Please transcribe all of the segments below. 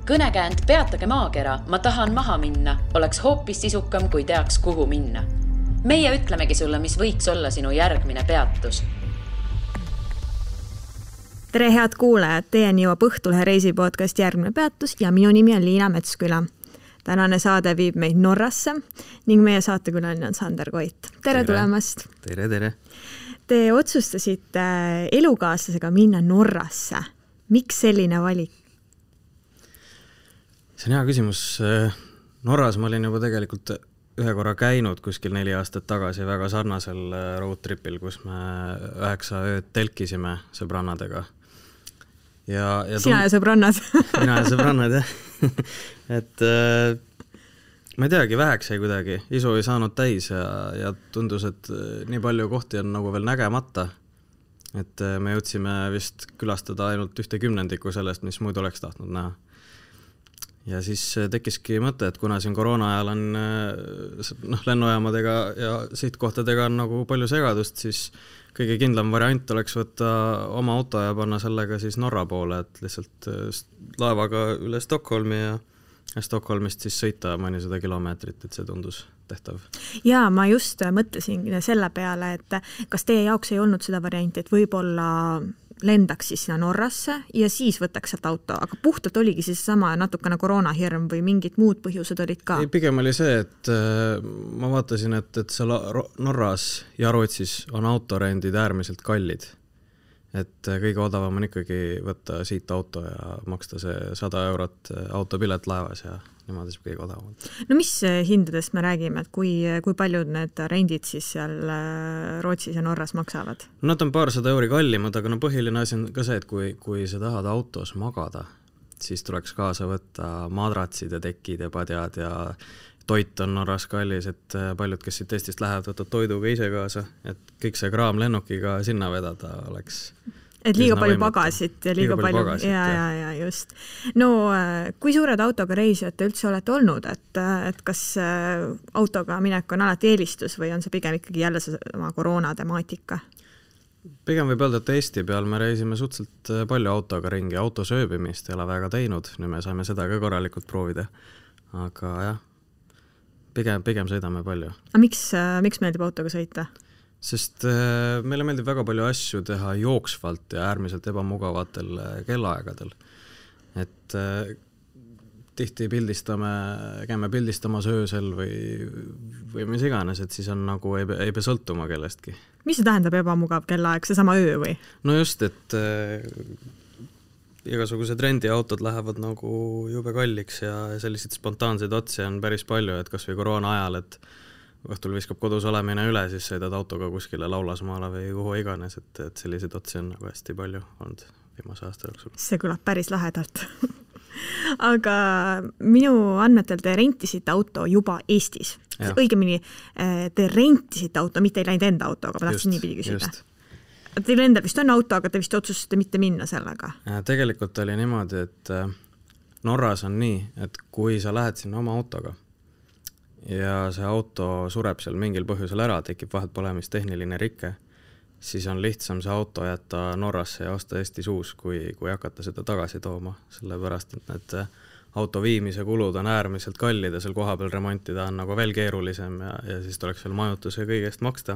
Kõnekäänd Peatage maakera, ma tahan maha minna, oleks hoopis sisukam, kui teaks, kuhu minna. Meie ütlemegi sulle, mis võiks olla sinu järgmine peatus. Tere head kuulajad, teieni jõuab Õhtulehe reisipodcast Järgmine peatus ja minu nimi on Liina Metsküla. Tänane saade viib meid Norrasse ning meie saatekülaline on Sander Koit. Tere tulemast! Tere! Te otsustasite elukaaslasega minna Norrasse. Miks selline valik? See on hea küsimus. Norras ma olin juba tegelikult ühe korra käinud kuskil 4 aastat tagasi väga sarnasel roadtripil, kus me 9 ööd telkisime sõbrannadega. Sina ja sõbrannad? Mina ja sõbrannad, jah. Et ma ei teagi, väheks jäi kuidagi. Isu ei saanud täis ja tundus, et nii palju kohti on nagu veel nägemata. Et me jõudsime vist külastada ainult 1/10 sellest, mis muidu oleks tahtnud näha. Ja siis tekkiski mõte, et kuna siin koroona ajal on lennujaamadega ja sihtkohtadega on nagu palju segadust, siis kõige kindlam variant oleks võtta oma auto ja panna sellega siis Norra poole, et lihtsalt laevaga üle Stockholmi ja Stockholmist siis sõita mõnisada kilomeetrit, et see tundus tehtav. Ja ma just mõtlesin selle peale, et kas teie jaoks ei olnud seda varianti, et võib-olla lendaks siis sinna Norrasse ja siis võtaks sealt auto, aga puhtalt oligi siis sama natukene koroonahirm või mingid muud põhjused olid ka? Ei, pigem oli see, et ma vaatasin, et seal Norras ja Rootsis on autorendid äärmiselt kallid. Et kõige odavam on ikkagi võtta siit auto ja maksta see 100 eurot autopilet laevas ja niimoodi see kõige odavam. No mis hindadest me räägime, et kui paljud need rendid siis seal Rootsis ja Norras maksavad? Nad on paarsada euri kallimad, aga põhiline asi on ka see, et kui sa tahad autos magada, siis tuleks kaasa võtta madratsid ja tekid ja padjad ja toit on Norras kallis, et paljud, kes siit Eestist lähevad, võtavad toiduga ise kaasa, et kõik see kraam lennukiga sinna vedada oleks... Et liiga palju pagasit ja liiga palju pagasit, ja just. No, kui suured autoga reisijad te üldse olete olnud, et kas autoga minek on alati eelistus või on see pigem ikkagi jälle sama koroona temaatika? Pigem võib öelda, et Eesti peal me reisime suhteliselt palju autoga ringi, autosööbimist ei ole väga teinud, nüüd me saime seda ka korralikult proovida, aga jah, pigem sõidame palju. A miks meeldib autoga sõita? Sest meile meeldib väga palju asju teha jooksvalt ja äärmiselt ebamugavatel kellaaegadel. Et tihti käime pildistamas öösel või mis iganes, et siis on nagu ei pea sõltuma kellestki. Mis see tähendab ebamugav kellaaeg, see sama öö või? No just, et igasugused rendiautod lähevad nagu jube kalliks ja selliseid spontaanseid otsi on päris palju, et kas või koroona ajal, et õhtul viskab kodus olemine üle, siis sõidad autoga kuskile Laulasmaale või kuhu iganes, et selliseid otsi on nagu hästi palju olnud viimase aasta jooksul. See kõlab päris lahedalt. Aga minu andmetel te rentisite auto juba Eestis. Õigemini, te rentisite auto, mitte ei läinud enda autoga, ma tahtsin niipidi küsida. Teil endal vist on auto, aga te vist otsustasite mitte minna sellega? Tegelikult oli niimoodi, et Norras on nii, et kui sa lähed sinna oma autoga ja see auto sureb seal mingil põhjusel ära, tekib vaheltpolemist tehniline rikke, siis on lihtsam see auto jätta Norrasse ja osta Eestis uus, kui hakata seda tagasi tooma, sellepärast, et need auto viimise kulud on äärmiselt kallid ja seal koha peal remontida on nagu veel keerulisem ja siis tuleks veel majutuse kõigest maksta.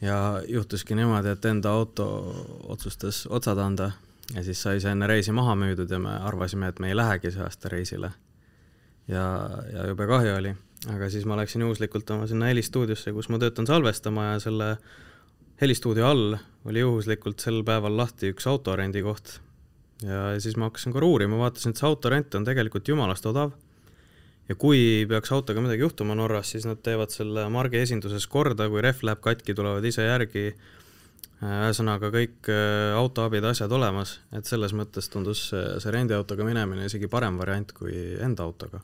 Ja juhtuski niimoodi, et enda auto otsustas otsad anda ja siis sai see enne reisi maha müüdud ja me arvasime, et me ei lähegi see aasta reisile. Ja jube kahju oli, aga siis ma läksin juhuslikult oma sinna helistuudiosse, kus ma töötan salvestama ja selle helistuudio all oli juhuslikult sel päeval lahti üks autorendi koht. Ja siis ma hakkasin korra uurima, vaatasin, et see autorent on tegelikult jumalast odav. Ja kui peaks autoga midagi juhtuma Norras, siis nad teevad selle margi esinduses korda, kui ref läheb katki, tulevad ise järgi, ühesõnaga kõik autoabid asjad olemas, et selles mõttes tundus see rendiautoga minemine isegi parem variant kui enda autoga.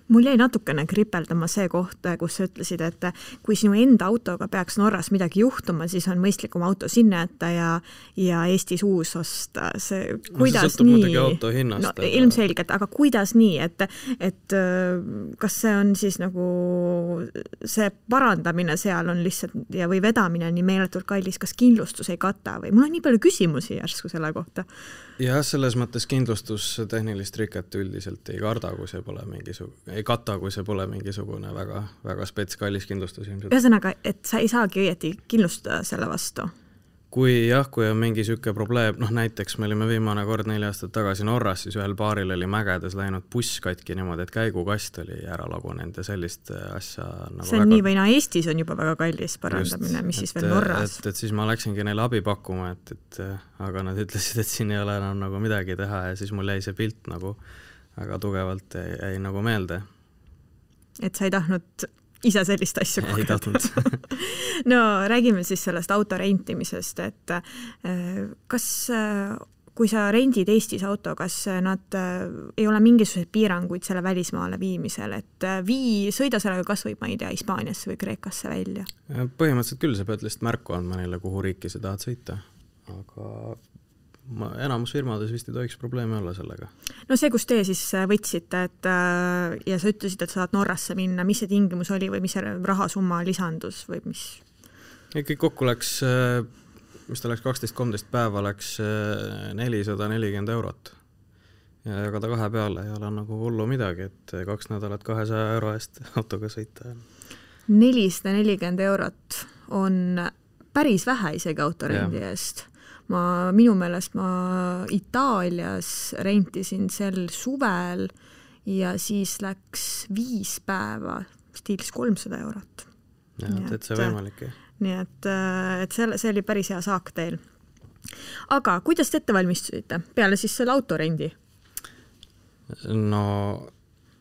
Mul jäi natukene kripeldama see koht, kus sa ütlesid, et kui sinu enda autoga peaks Norras midagi juhtuma, siis on mõistlikum auto sinna jätta ja Eestis uus osta. See, kuidas see nii? Auto hinnast, no, ilmselgelt, aga kuidas nii, et kas see on siis nagu see parandamine seal on lihtsalt või vedamine nii meeletult kallis, kas kindlustus ei kata või mul on nii palju küsimusi järsku selle kohta. Jah, selles mõttes kindlustus tehnilist riket üldiselt ei kata, kui see pole mingisugune väga, väga spets kallis kindlustus ilmselt. Ühesõnaga, et sa ei saagi õieti kindlustada selle vastu? Kui on mingi süke probleem, näiteks me olime viimane kord 4 aastat tagasi Norras, siis ühel paaril oli mägedes läinud buss katki niimoodi, et käigukast oli ära lagunenud ja sellist asja nagu see on väga... nii või Eestis on juba väga kallis parandamine, mis siis veel Norras? Et siis ma läksingi neile abi pakkuma, aga nad ütlesid, et siin ei ole enam nagu midagi teha ja siis mul jäi see pilt nagu väga tugevalt jäi nagu meelde. Et sa ei tahtnud ise sellist asju kogeda. No räägime siis sellest auto rentimisest, et kas, kui sa rendid Eestis auto, kas nad ei ole mingisuguseid piiranguid selle välismaale viimisel, et sõida sellega kas või, ma ei tea, Hispaaniasse või Kreekasse välja? Põhimõtteliselt küll, sa pead lihtsalt märku andma neile, kuhu riiki sa tahad sõita, aga enamus firmades vist ei tohiks probleemi olla sellega. No see, kus te siis võtsite, ja sa ütlesid, et sa saad Norrasse minna, mis see tingimus oli või mis see rahasumma lisandus või mis? Kõik kokku läks, mis ta läks 12-13 päeva, läks 440 €. Ja jagada 2 peale ei ole nagu hullu midagi, et 2 nädalat 200 € eest autoga sõita. 440 € on päris vähe isegi autorendi eest. Minu meelest ma Itaalias rentisin sel suvel ja siis läks 5 päeva, stiilis 300 €. Ja, see võimalik. Nii et see oli päris hea saak teil. Aga kuidas te ette valmistusite peale siis selle autorendi? No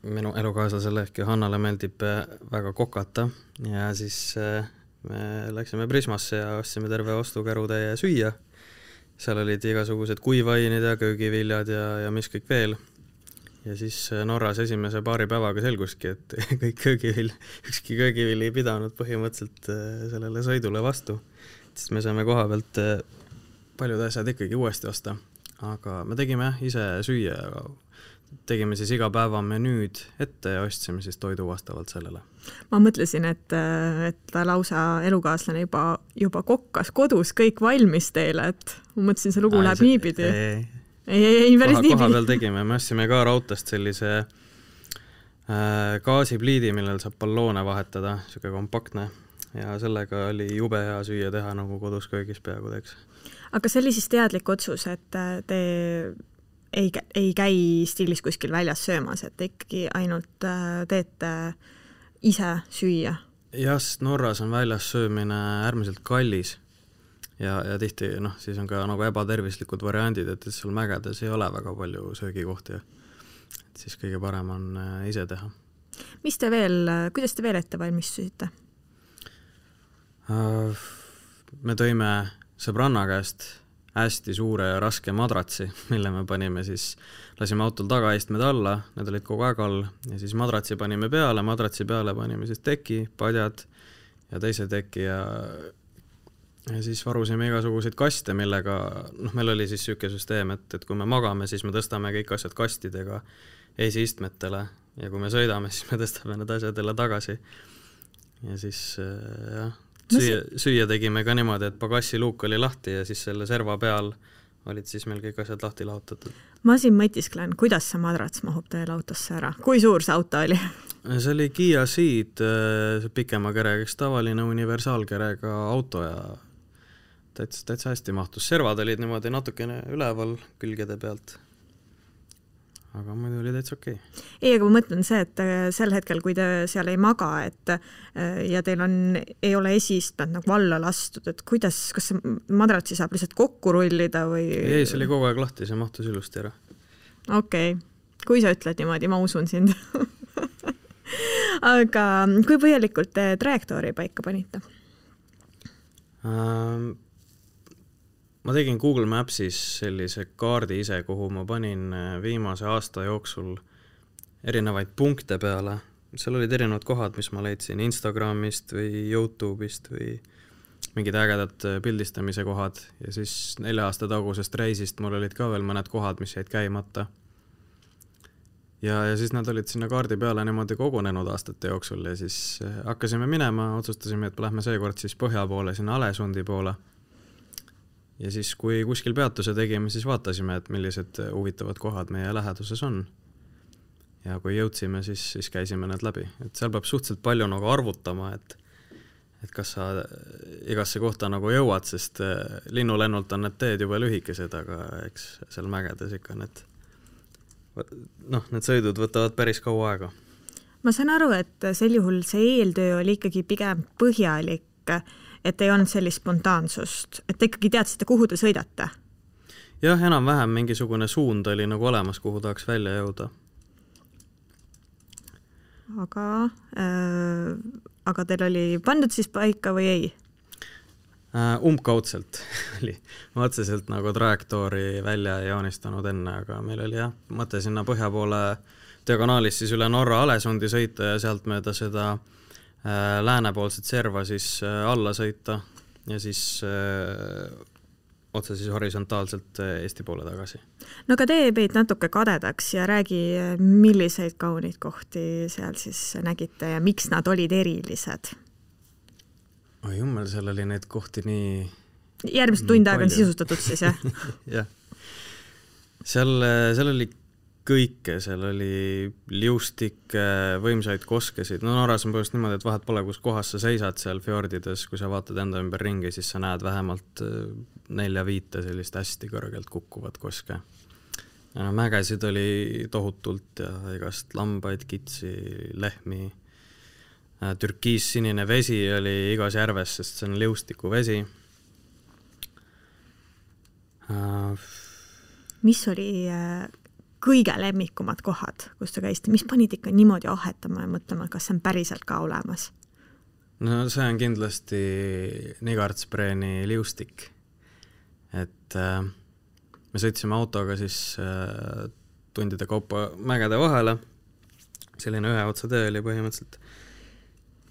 minu elukaaslasele ehk Johannale meeldib väga kokata ja siis me läksime Prismasse ja ostsime terve ostukärutäie süüa. Seal olid igasugused kuivainid ja köögiviljad ja mis kõik veel. Ja siis Norras esimese paari päevaga selguski, et ükski köögivili ei pidanud põhimõtteliselt sellele sõidule vastu. Siis me saime koha pealt paljud asjad ikkagi uuesti osta. Aga me tegime ise süüa ja tegime siis iga päeva menüüd ette ja ostsime siis toidu vastavalt sellele. Ma mõtlesin, et lausa elukaaslane juba kokkas kodus kõik valmis teile, et ma mõtlesin, see lugu läheb niipidi. Ei, päris niipidi. Koha peal tegime, me ostsime ka rautast sellise gaasipliidi, millel saab balloone vahetada, siuke kompaktne ja sellega oli jube hea süüa teha nagu kodus köögis peaaegu teeks. Aga see oli siis teadlik otsus, et te ei käi stiilis kuskil väljas söömas, et ikkagi ainult teete ise süüa? Jah, Norras on väljas söömine äärmiselt kallis ja tihti siis on ka nagu ebatervislikud variandid, et seal mägedes ei ole väga palju söögikohti. Et siis kõige parem on ise teha. Kuidas te veel ette valmistusite? Me tõime sõbranna käest hästi suure ja raske madratsi, mille me panime siis, lasime autol tagaistmed alla, need olid kogu aeg all ja siis madratsi panime peale, madratsi peale panime siis teki, padjad ja teise teki ja siis varusime igasuguseid kaste, millega, meil oli siis süüke süsteem, et kui me magame, siis me tõstame kõik asjad kastidega esiistmetele ja kui me sõidame, siis me tõstame need asjad jälle tagasi ja siis jah, süüa tegime ka niimoodi, et pagassi luuk oli lahti ja siis selle serva peal olid siis meil kõik asjad lahti lahutatud. Ma siin mõtisklen, kuidas see madrats mahub teil autosse ära? Kui suur see auto oli? See oli Kia Ceed, pikema kerega, tavaline universaalkerega auto ja täitsa hästi mahtus. Servad olid niimoodi natukene üleval külgede pealt. Aga muidu oli täitsa okei. Ei, aga ma mõtlen see, et sel hetkel, kui te seal ei maga, ja teil ei ole esiistmed nagu alla lastud, et kas see madratsi saab lihtsalt kokku rullida või? Ei, see oli kogu aeg lahti, see mahtus ilusti ära. Okei. Kui sa ütled niimoodi, ma usun sind. Aga kui põhjalikult te trajektoori paika panite? Ma tegin Google Mapsis sellise kaardi ise, kuhu ma panin viimase aasta jooksul erinevaid punkte peale, seal olid erinevad kohad, mis ma leidsin Instagramist või YouTube'ist või mingid ägedad pildistamise kohad ja siis 4 aasta tagusest reisist mul olid ka veel mõned kohad, mis jäid käimata. Ja siis nad olid sinna kaardi peale niimoodi kogunenud aastate jooksul ja siis hakkasime minema, otsustasime, et lähme seekord siis põhja poole, sinna Alesundi poole. Ja siis, kui kuskil peatuse tegime, siis vaatasime, et millised huvitavad kohad meie läheduses on. Ja kui jõudsime, siis käisime need läbi. Et seal peab suhteliselt palju nagu arvutama, et kas sa igasse kohta nagu jõuad, sest linnulennult on need teed juba lühikesed, aga eks seal mägedes ikka need sõidud võtavad päris kaua aega. Ma saan aru, et sel juhul see eeltöö oli ikkagi pigem põhjalik, et ei olnud sellist spontaansust, et te ikkagi teadsite, kuhu te sõidate? Jah, enam-vähem mingisugune suund oli nagu olemas, kuhu tahaks välja jõuda. Aga teil oli pandud siis paika või ei? Umbkaudselt oli. Ma otseselt nagu trajektoori välja joonistanud enne, aga meil oli mõte sinna põhja poole diagonaalis siis üle Norra Alesundi sõita ja sealt mööda seda läänepoolset serva siis alla sõita ja siis otse siis horisontaalselt Eesti poole tagasi. No aga tee meid natuke kadedaks ja räägi, milliseid kaunid kohti seal siis nägite ja miks nad olid erilised? Oi jummel, seal oli neid kohti nii... Järgmised tund aega on sisustatud siis, jah? Jah. Seal oli kõike, seal oli liustik, võimsaid koskesid. No Norras on põhjust niimoodi, et vahet pole, kus kohas sa seisad seal fjordides, kui sa vaatad enda ümber ringi, siis sa näed vähemalt 4-5 sellist hästi kõrgelt kukkuvat koske. Ja mägesid oli tohutult ja igast lambaid, kitsi, lehmi. Türkiis-sinine vesi oli igas järves, sest see on liustiku vesi. Mis oli kõige lemmikumad kohad, kus te käisite? Mis panid ikka niimoodi ahetama ja mõtlema, kas see on päriselt ka olemas? No see on kindlasti Nigartspreeni liustik. Et me sõitsime autoga siis tundide kaupa mägede vahele. Selline 1 otsa tee oli põhimõtteliselt.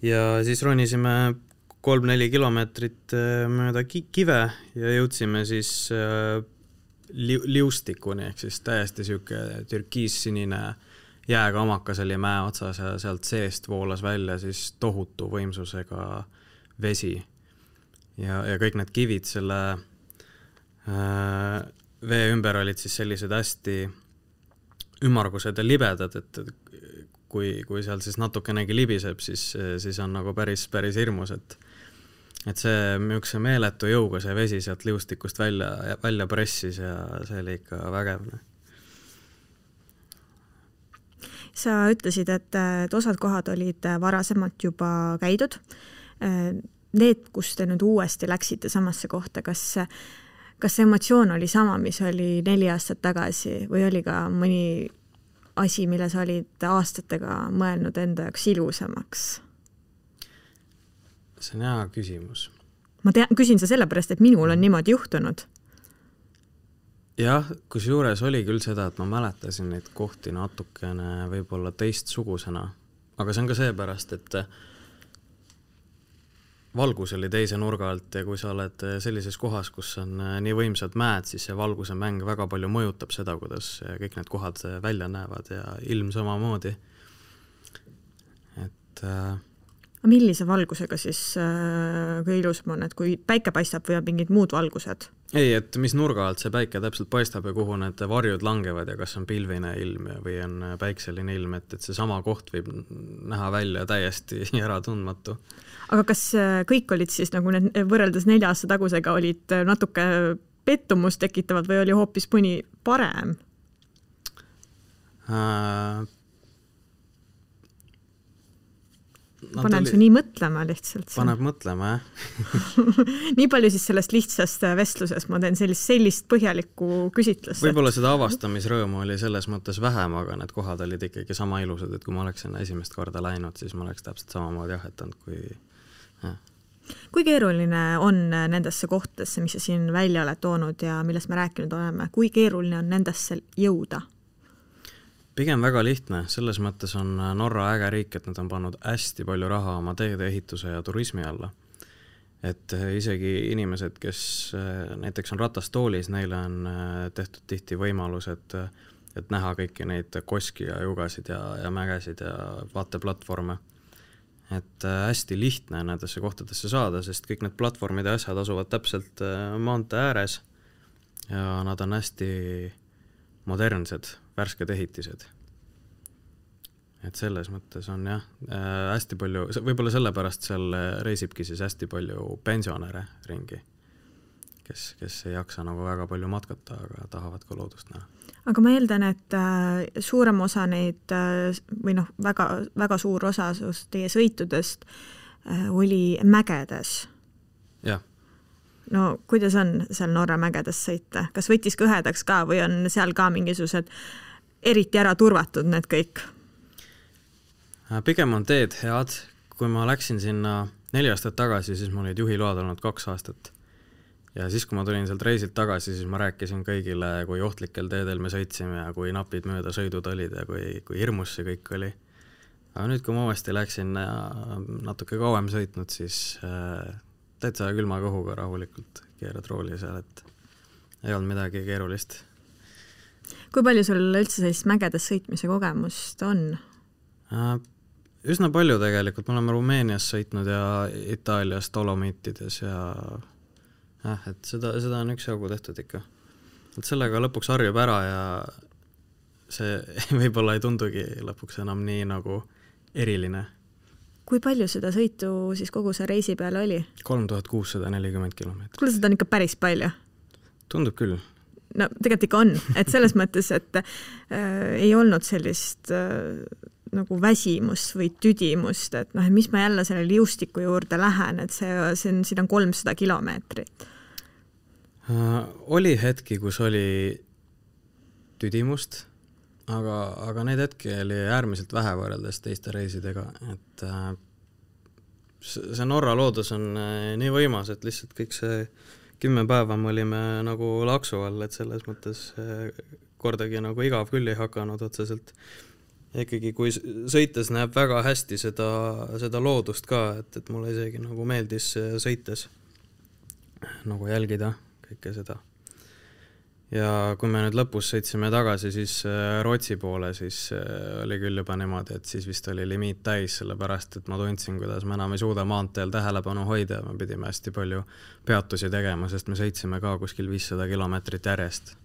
Ja siis ronisime 3-4 kilomeetrit mööda kive ja jõudsime siis liustikuni, ehk siis täiesti siuke türkiis-sinine jääkamakas oli mäe otsas ja sealt seest voolas välja siis tohutu võimsusega vesi. Ja kõik need kivid selle vee ümber olid siis sellised hästi ümmargused ja libedad, et kui seal siis natukenegi libiseb, siis on nagu päris hirmus, et see müükse meeletu jõuga see vesi sealt liustikust välja pressis ja see oli ikka vägevne. Sa ütlesid, et osad kohad olid varasemalt juba käidud. Need, kus te nüüd uuesti läksite samasse kohta, kas emotsioon oli sama, mis oli 4 aastat tagasi või oli ka mõni asi, mille sa olid aastatega mõelnud enda jaoks ilusamaks? See on hea küsimus. Ma küsin sa sellepärast, et minul on niimoodi juhtunud. Jah, kus juures oli küll seda, et ma mäletasin neid kohti natukene võib-olla teistsugusena. Aga see on ka seepärast, et valgus oli teise nurga alt ja kui sa oled sellises kohas, kus on nii võimsad mäed, siis see valguse mäng väga palju mõjutab seda, kuidas kõik need kohad välja näevad ja ilm samamoodi. Et millise valgusega siis kui ilusam on, et kui päike paistab või on mingid muud valgused? Ei, et mis nurga alt see päike täpselt paistab ja kuhu need varjud langevad ja kas on pilvine ilm või on päikseline ilm, et see sama koht võib näha välja täiesti ära tundmatu. Aga kas kõik olid siis nagu need võrreldes 4 aasta tagusega olid natuke pettumust tekitavad või oli hoopis mõni parem? Panen su nii mõtlema lihtsalt. Paneb mõtlema, jah. Nii palju siis sellest lihtsast vestluses ma teen sellist põhjalikku küsitlust. Võib-olla seda avastamisrõõmu oli selles mõttes vähem, aga need kohad olid ikkagi sama ilusad, et kui ma oleksin esimest korda läinud, siis ma oleks täpselt samamoodi ahetanud kui... Ja. Kui keeruline on nendesse kohtadesse, mis sa siin välja oled toonud ja millest me rääkinud oleme, kui keeruline on nendesse jõuda? Pigem väga lihtne, selles mõttes on Norra äge riik, et nad on pannud hästi palju raha oma teede ehituse ja turismi alla. Et isegi inimesed, kes näiteks on ratastoolis, neile on tehtud tihti võimalus, et näha kõiki neid koski ja jugasid ja mägesid ja vaateplatvorme. Et hästi lihtne nendesse kohtadesse saada, sest kõik need platvormid ja asjad asuvad täpselt maantee ääres ja nad on hästi modernsed, värsked ehitised. Et selles mõttes on jah, hästi palju, võib-olla sellepärast seal reisibki siis hästi palju pensionäre ringi, kes ei jaksa nagu väga palju matkata, aga tahavad ka loodust näha. Aga ma eeldan, et suurem osa neid, või väga, väga suur osa teie sõitudest oli mägedes. Jah. No kuidas on seal Norra mägedes sõita? Kas võttis kõhedaks ka või on seal ka mingisugused eriti ära turvatud need kõik? Pigem on teed head. Kui ma läksin sinna 4 aastat tagasi, siis mul olid juhiload olnud 2 aastat. Ja siis, kui ma tulin sealt reisilt tagasi, siis ma rääkisin kõigile, kui ohtlikel teedel me sõitsime ja kui napid mööda sõidud olid ja kui hirmus see kõik oli. Aga nüüd, kui ma uuesti läksin natuke kauem sõitnud, siis täitsa külma kõhuga rahulikult keerad rooli seal, et ei olnud midagi keerulist. Kui palju sul üldse sellist mägedes sõitmise kogemust on? Üsna palju tegelikult. Me oleme Rumeenias sõitnud ja Itaalias Dolomiitides ja et seda on üks jagu tehtud ikka. Et sellega lõpuks harjub ära ja see võib-olla ei tundugi lõpuks enam nii nagu eriline. Kui palju seda sõitu siis kogu see reisi peal oli? 3640 kilomeetrit. Kuule, seda on ikka päris palju. Tundub küll. No tegelikult ikka on, et selles mõttes, et ei olnud sellist nagu väsimust või tüdimust, et mis ma jälle selle liustiku juurde lähen, et siin on 300 kilomeetrit. Oli hetki, kus oli tüdimust, aga neid hetki oli äärmiselt vähe võrreldes teiste reisidega, et see Norra loodus on nii võimas, et lihtsalt kõik see 10 päeva me olime nagu laksu all, et selles mõttes kordagi nagu igav küll ei hakanud otseselt. Ikkagi kui sõites näeb väga hästi seda loodust ka, et mulle isegi nagu meeldis sõites nagu jälgida kõike seda. Ja kui me nüüd lõpus sõitsime tagasi siis Rootsi poole, siis oli küll juba niimoodi, et siis vist oli limiit täis, sellepärast, et ma tundsin, kuidas me enam ei suuda maanteel tähelepanu hoida ja me pidime hästi palju peatusi tegema, sest me sõitsime ka kuskil 500 kilomeetrit järjest.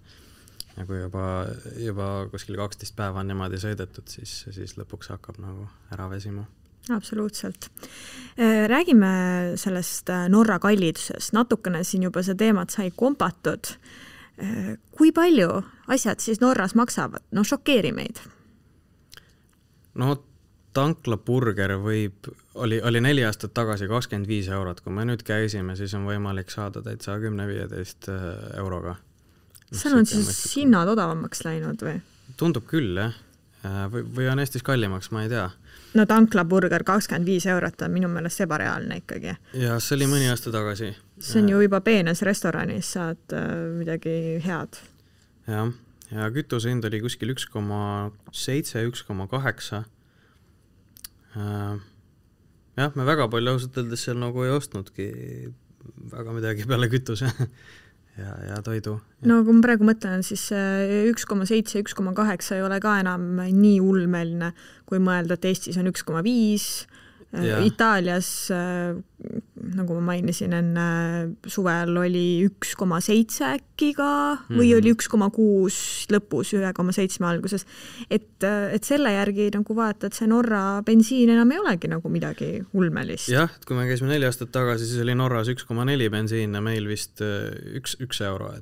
Ja kui juba kuskil 12 päeva on niimoodi sõidetud, siis lõpuks hakkab nagu ära vesima. Absoluutselt. Räägime sellest Norra kallidusest. Natukene siin juba see teemat sai kompatud. Kui palju asjad siis Norras maksavad? No šokeeri meid. No tanklaburger oli 4 aastat tagasi 25 €. Kui me nüüd käisime, siis on võimalik saada täitsa 10-15 euroga. Seal on siis hinnad odavamaks läinud või? Tundub küll, jah. Või on Eestis kallimaks, ma ei tea. No tanklaburger 25 € on minu meelest ebareaalne ikkagi. Ja see oli mõni aasta tagasi. See on ju juba peenes restoranis, saad midagi head. Jah, ja kütuse hind oli kuskil 1,7, 1,8. Jah, me väga palju ausalt öeldes seal nagu ei ostnudki väga midagi peale kütuse. Ja toidu. No kui ma praegu mõtlen, siis 1,7, 1,8 ei ole ka enam nii ulmeline, kui mõelda, et Eestis on 1,5, Itaalias, nagu ma mainisin enne, suvel oli 1,7 äkki ka või oli 1,6 lõpus, 1,7 alguses. Et selle järgi nagu vaata, et see Norra bensiin enam ei olegi nagu midagi ulmelist. Jah, et kui me käisime 4 aastat tagasi, siis oli Norras 1,4 bensiin ja meil vist 1 euro.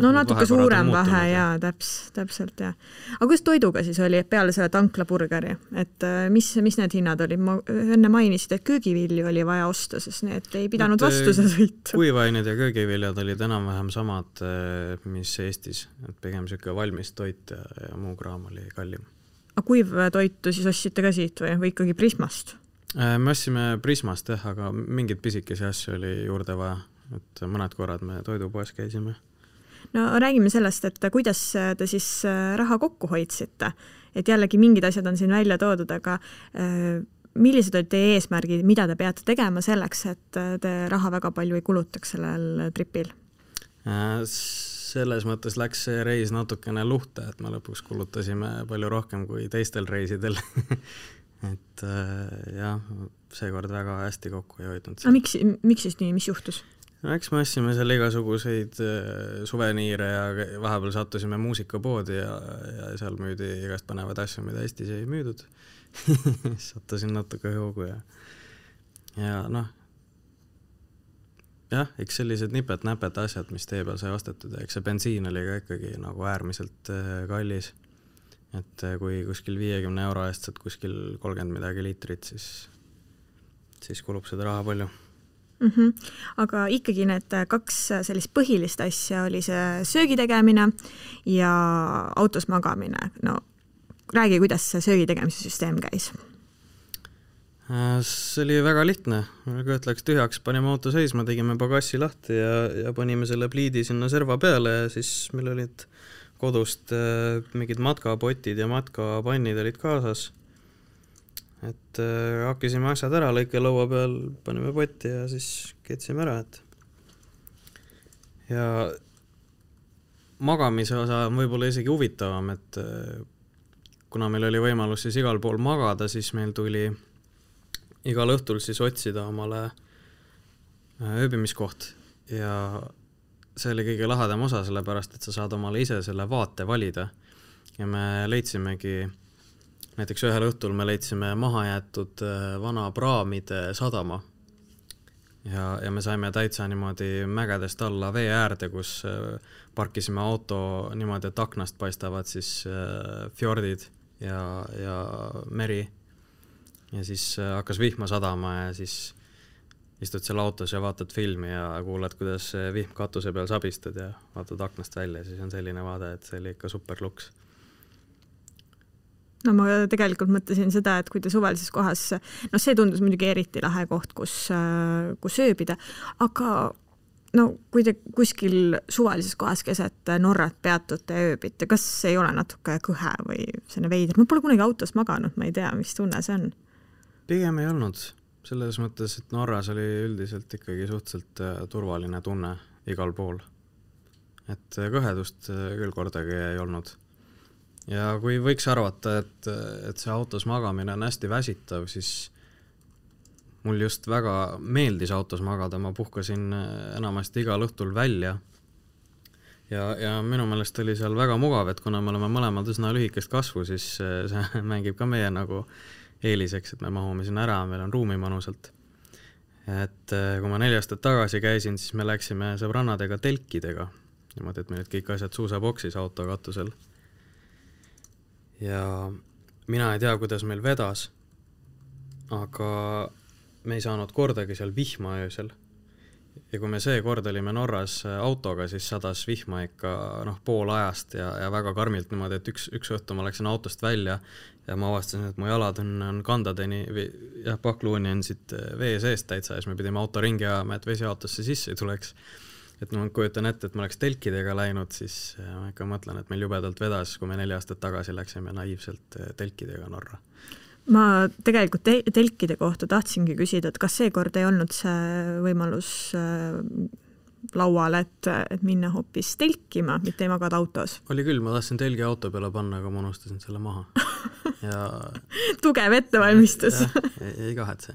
No natuke suurem vahe, jaa, täpselt, jah. Aga kuidas toiduga siis oli peale selle tanklaburgeri? Et mis need hinnad oli? Ma enne mainisid, et köögivilju oli vaja osta, sest need ei pidanud vastu seda sõitu. Kuivained ja köögiviljad olid enam-vähem samad, mis Eestis. Et pigem siuke valmis toit ja muu kraam oli kallim. Aga kuivtoitu siis ostsite ka siit või ikkagi Prismast? Me ostsime Prismast, aga mingid pisikesi asju oli juurde vaja. Et mõned korrad me toidupoes käisime. No räägime sellest, et kuidas te siis raha kokku hoidsite, et jällegi mingid asjad on siin välja toodud, aga millised olid teie eesmärgid, mida te peate tegema selleks, et te raha väga palju ei kulutaks sellel tripil? Selles mõttes läks see reis natukene luhta, et me lõpuks kulutasime palju rohkem kui teistel reisidel. Et jah, seekord väga hästi kokku ei hoidnud. Miks siis nii, mis juhtus? Eks me ostsime seal igasuguseid suveniire ja vahepeal sattusime muusikapoodi ja seal müüdi igast panevad asju, mida Eestis ei müüdud. Sattusin natuke hoogu ja noh, jah, eks sellised nipet-näpet asjad, mis tee peal sai ostetud, eks see bensiin oli ka ikkagi nagu äärmiselt kallis. Et kui kuskil 50 euro eest saad kuskil 30 midagi liitrit, siis kulub seda raha palju. Aga ikkagi need 2 sellist põhilist asja oli see söögi tegemine ja autos magamine. No, räägi, kuidas see söögi tegemise süsteem käis? See oli väga lihtne. Kõht läks tühjaks, panime auto seisma, tegime pagassi lahti ja panime selle pliidi sinna serva peale ja siis meil olid kodust mingid matkapotid ja matkapannid olid kaasas. Et hakkisime asjad ära, lõike laua peal, panime potti ja siis ketsime ära. Ja magamise osa on võib-olla isegi huvitavam, et kuna meil oli võimalus siis igal pool magada, siis meil tuli igal õhtul siis otsida omale ööbimiskoht ja see oli kõige lahedam osa, sellepärast, et sa saad omale ise selle vaate valida. Ja me leidsimegi, näiteks ühel õhtul me leidsime mahajäetud vana praamide sadama. Ja me saime täitsa niimoodi mägedest alla vee äärde, kus parkisime auto niimoodi, et aknast paistavad siis fjordid ja meri. Ja siis hakkas vihma sadama ja siis istud seal autos ja vaatad filmi ja kuulad, kuidas vihm katuse peal sabistad ja vaatad aknast välja, siis on selline vaade, et see oli ikka super luks. No ma tegelikult mõtlesin seda, et kui te suvalises kohas, no see tundus muidugi eriti lahe koht, kus ööbida, aga no kui te kuskil suvalises kohas keset Norrat peatute ja ööbite, kas ei ole natuke kõhe või selline veider? Ma pole kunagi autos maganud, ma ei tea, mis tunne see on. Pigem ei olnud. Selles mõttes, et Norras oli üldiselt ikkagi suhteliselt turvaline tunne igal pool. Et kõhedust küll kordagi ei olnud. Ja kui võiks arvata, et see autos magamine on hästi väsitav, siis mul just väga meeldis autos magada. Ma puhkasin enamasti igal õhtul välja. Ja minu meelest oli seal väga mugav, et kuna me oleme mõlemad üsna lühikest kasvu, siis see mängib ka meie nagu eeliseks, et me mahume sinna ära, meil on ruumi manusalt. Et kui ma 4 aastat tagasi käisin, siis me läksime sõbrannadega telkidega. Niimoodi, et meil olid kõik asjad suusaboksis auto katusel. Ja mina ei tea, kuidas meil vedas, aga me ei saanud kordagi seal vihma öösel. Ja kui me see kord olime Norras autoga, siis sadas vihma ikka pool ajast ja väga karmilt niimoodi, et üks õhtu ma läksin autost välja ja ma avastasin, et mu jalad on kandadeni ja pakluuni on siit vee seest täitsa ja siis me pidime auto ringi ajama, et vesi autosse sisse ei tuleks. Et ma kujutan ette, et ma oleks telkidega läinud, siis ma ikka mõtlen, et meil jubedalt vedas, kui me 4 aastat tagasi läksime naiivselt telkidega Norra. Ma tegelikult telkide kohta tahtsingi küsida, et kas seekord ei olnud see võimalus laual, et minna hoopis telkima, mitte ei magada autos? Oli küll, ma tahtsin telgi auto peale panna, aga ma unustasin selle maha. Ja tugev ettevalmistus. Ei kahetse.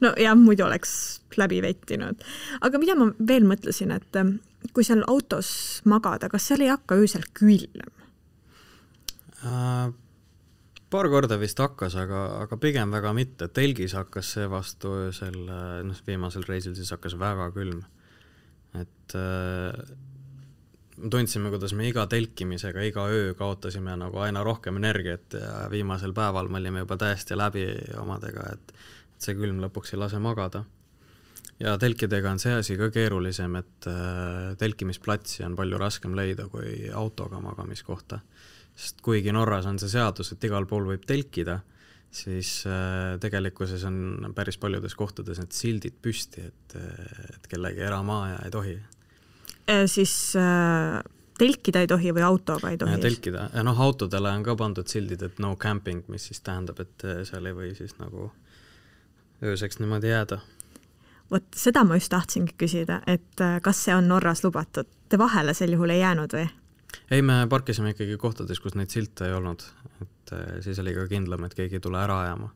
No jah, muidu oleks läbi vettinud. Aga mida ma veel mõtlesin, et kui seal autos magada, kas seal ei hakka öösel külm? Paar korda vist hakkas, aga pigem väga mitte. Telgis hakkas see vastu öösel, viimasel reisil siis hakkas väga külm. Et tundsime, kuidas me iga telkimisega, iga öö kaotasime nagu aina rohkem energiat ja viimasel päeval me olime juba täiesti läbi omadega, et see külm lõpuks ei lase magada. Ja telkidega on see asi ka keerulisem, et telkimisplatsi on palju raskem leida kui autoga magamiskohta. Sest kuigi Norras on see seadus, et igal pool võib telkida, siis tegelikkuses on päris paljudes kohtades need sildid püsti, et kellegi eramaa ja ei tohi. siis telkida ei tohi või autoga ei tohi? Telkida. Ja autodele on ka pandud sildid, et no camping, mis siis tähendab, et seal ei või siis nagu ööseks niimoodi jääda. Vot seda ma just tahtsingi küsida, et kas see on Norras lubatud? Te vahele sel juhul ei jäänud või? Ei, me parkisime ikkagi kohtades, kus neid silte ei olnud. Et siis oli ka kindlam, et keegi ei tule ära ajama.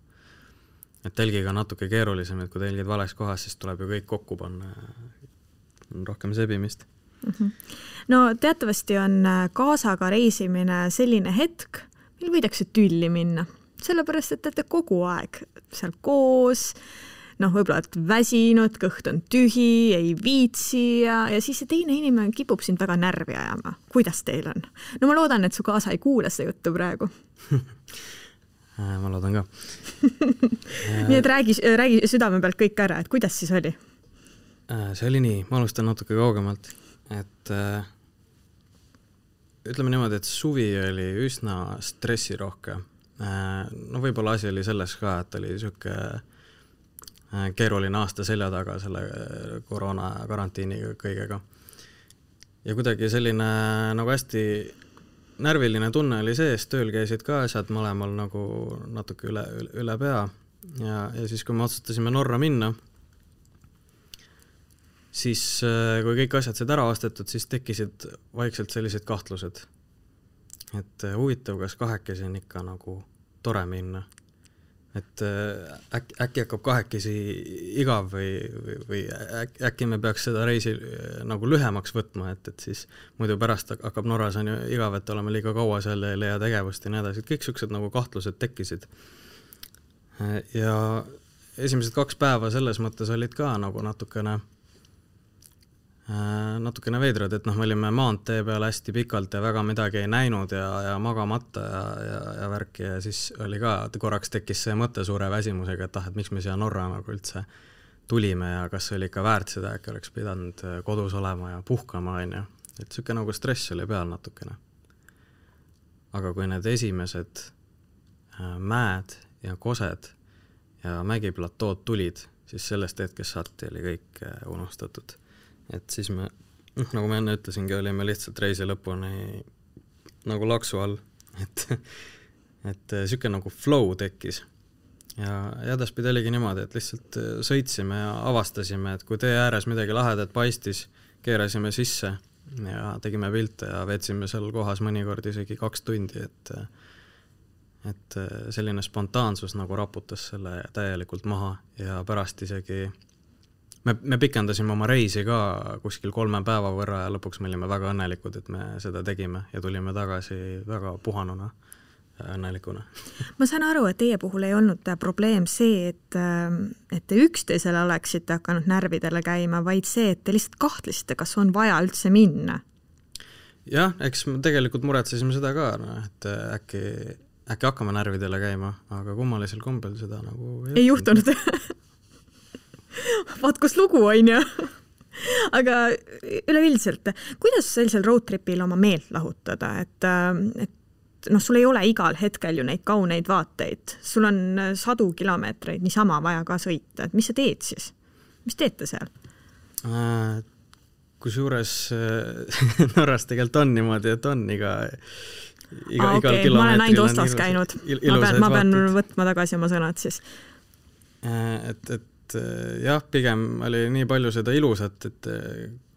Et telgiga natuke keerulisem, et kui telgid vales kohas, siis tuleb ju kõik kokku panna. On rohkem sebimist. No teatavasti on kaasaga reisimine selline hetk, mil võidakse tülli minna. Sellepärast, et te kogu aeg seal koos, võib-olla et väsinud, kõht on tühi, ei viitsi ja siis see teine inimene kipub sind väga närvi ajama. Kuidas teil on? No ma loodan, et su kaasa ei kuule see juttu praegu. Ma loodan ka. Nii et räägi südame pealt kõik ära, et kuidas siis oli? See oli nii, ma alustan natuke kaugemalt, et ütleme niimoodi, et suvi oli üsna stressirohke. Võib-olla asi oli selles ka, et oli siuke keeruline aasta selja taga selle koroona karantiiniga kõigega. Ja kuidagi selline nagu hästi närviline tunne oli sees, tööl käisid ka asjad mõlemal nagu natuke üle pea ja siis kui me otsustasime Norra minna, siis kui kõik asjad said ära ostetud, siis tekkisid vaikselt sellised kahtlused, et huvitav, kas kahekesi on ikka nagu tore minna. Et äkki hakkab kahekesi igav või äkki me peaks seda reisi nagu lühemaks võtma, et siis muidu pärast hakkab Norras on ju igav, et oleme liiga kaua seal ja ei leia tegevust ja nii edasi. Kõik siuksed nagu kahtlused tekkisid. Ja esimesed 2 päeva selles mõttes olid ka nagu natukene veidrad, et me olime maantee peal hästi pikalt ja väga midagi ei näinud ja magamata ja värki ja siis oli ka, korraks tekkis see mõte suure väsimusega, et miks me siia Norra nagu üldse tulime ja kas oli ikka väärt seda, äkki oleks pidanud kodus olema ja puhkama, et siuke nagu stress oli peal natukene. Aga kui need esimesed mäed ja kosed ja mägiplatood tulid, siis sellest hetkest saati oli kõik unustatud. Et siis me, nagu ma enne ütlesingi, olime lihtsalt reisi lõpuni nagu laksu all, et siuke nagu flow tekkis. Ja edaspidi oligi niimoodi, et lihtsalt sõitsime ja avastasime, et kui tee ääres midagi lahedat paistis, keerasime sisse ja tegime pilte ja veetsime seal kohas mõnikord isegi 2 tundi, et selline spontaansus nagu raputas selle täielikult maha ja pärast isegi me pikendasime oma reisi ka kuskil 3 päeva võrra ja lõpuks me olime väga õnnelikud, et me seda tegime ja tulime tagasi väga puhanuna ja õnnelikuna. Ma saan aru, et teie puhul ei olnud probleem see, et te üksteisele oleksite hakanud närvidele käima, vaid see, et te lihtsalt kahtlesite, kas on vaja üldse minna. Jah, eks me tegelikult muretsesime seda ka, et äkki hakkame närvidele käima, aga kummalisel kombel seda nagu ei juhtunud. Vaat kus lugu on ju. Aga üleüldiselt, kuidas sellisel roadtripil oma meelt lahutada, et sul ei ole igal hetkel ju neid kauneid vaateid, sul on 100 kilomeetreid niisama vaja ka sõita, et mis sa teed siis? Mis teete seal? Kusjuures Norras tegelikult on niimoodi, et on igal kilomeetril ma olen ainult ostas käinud, ma pean võtma tagasi oma sõnad siis. Et jah, pigem oli nii palju seda ilusat, et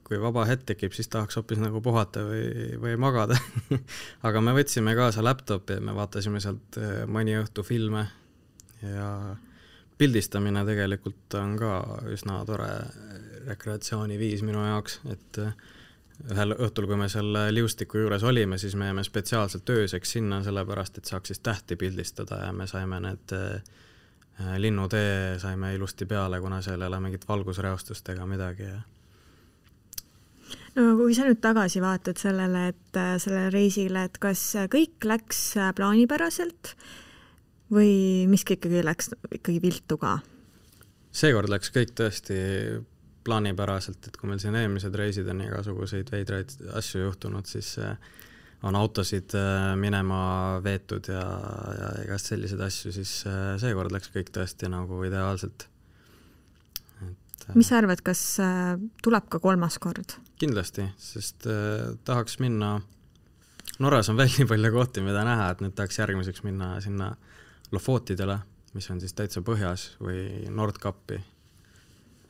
kui vaba hetk tekib, siis tahaks hoopis nagu puhata või magada. Aga me võtsime kaasa laptopi ja me vaatasime sealt mõni õhtu filme ja pildistamine tegelikult on ka üsna tore rekreatsiooniviis minu jaoks, et ühel õhtul, kui me selle liustiku juures olime, siis me jäime spetsiaalselt ööseks sinna, sellepärast, et saaks siis tähti pildistada ja me saime need linnutee saime ilusti peale, kuna seal ei ole mingit valgusreostust ega midagi. No kui sa nüüd tagasi vaatad sellele reisile, et kas kõik läks plaanipäraselt või miski ikkagi läks ikkagi viltu ka? Seekord läks kõik tõesti plaanipäraselt, et kui meil siin eelmised reisid on igasuguseid veidraid asju juhtunud, siis on autosid minema veetud ja igast sellised asju, siis seekord läks kõik tõesti nagu ideaalselt. Mis sa arvad, kas tuleb ka 3. kord? Kindlasti, sest tahaks minna, Norras on veel nii palju kohti, mida näha, et nüüd tahaks järgmiseks minna sinna Lofotidele, mis on siis täitsa põhjas, või Nordkapi,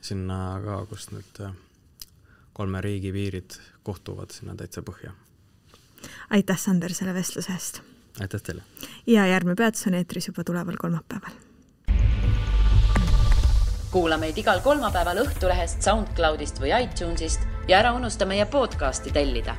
sinna ka, kus nüüd 3 riigi piirid kohtuvad sinna täitsa põhja. Aitäh, Sander, selle vestluse eest! Aitäh teile! Ja järgmine peatus on eetris juba tuleval kolmapäeval. Kuula meid igal kolmapäeval Õhtulehest, SoundCloudist või iTunesist ja ära unusta meie podcasti tellida.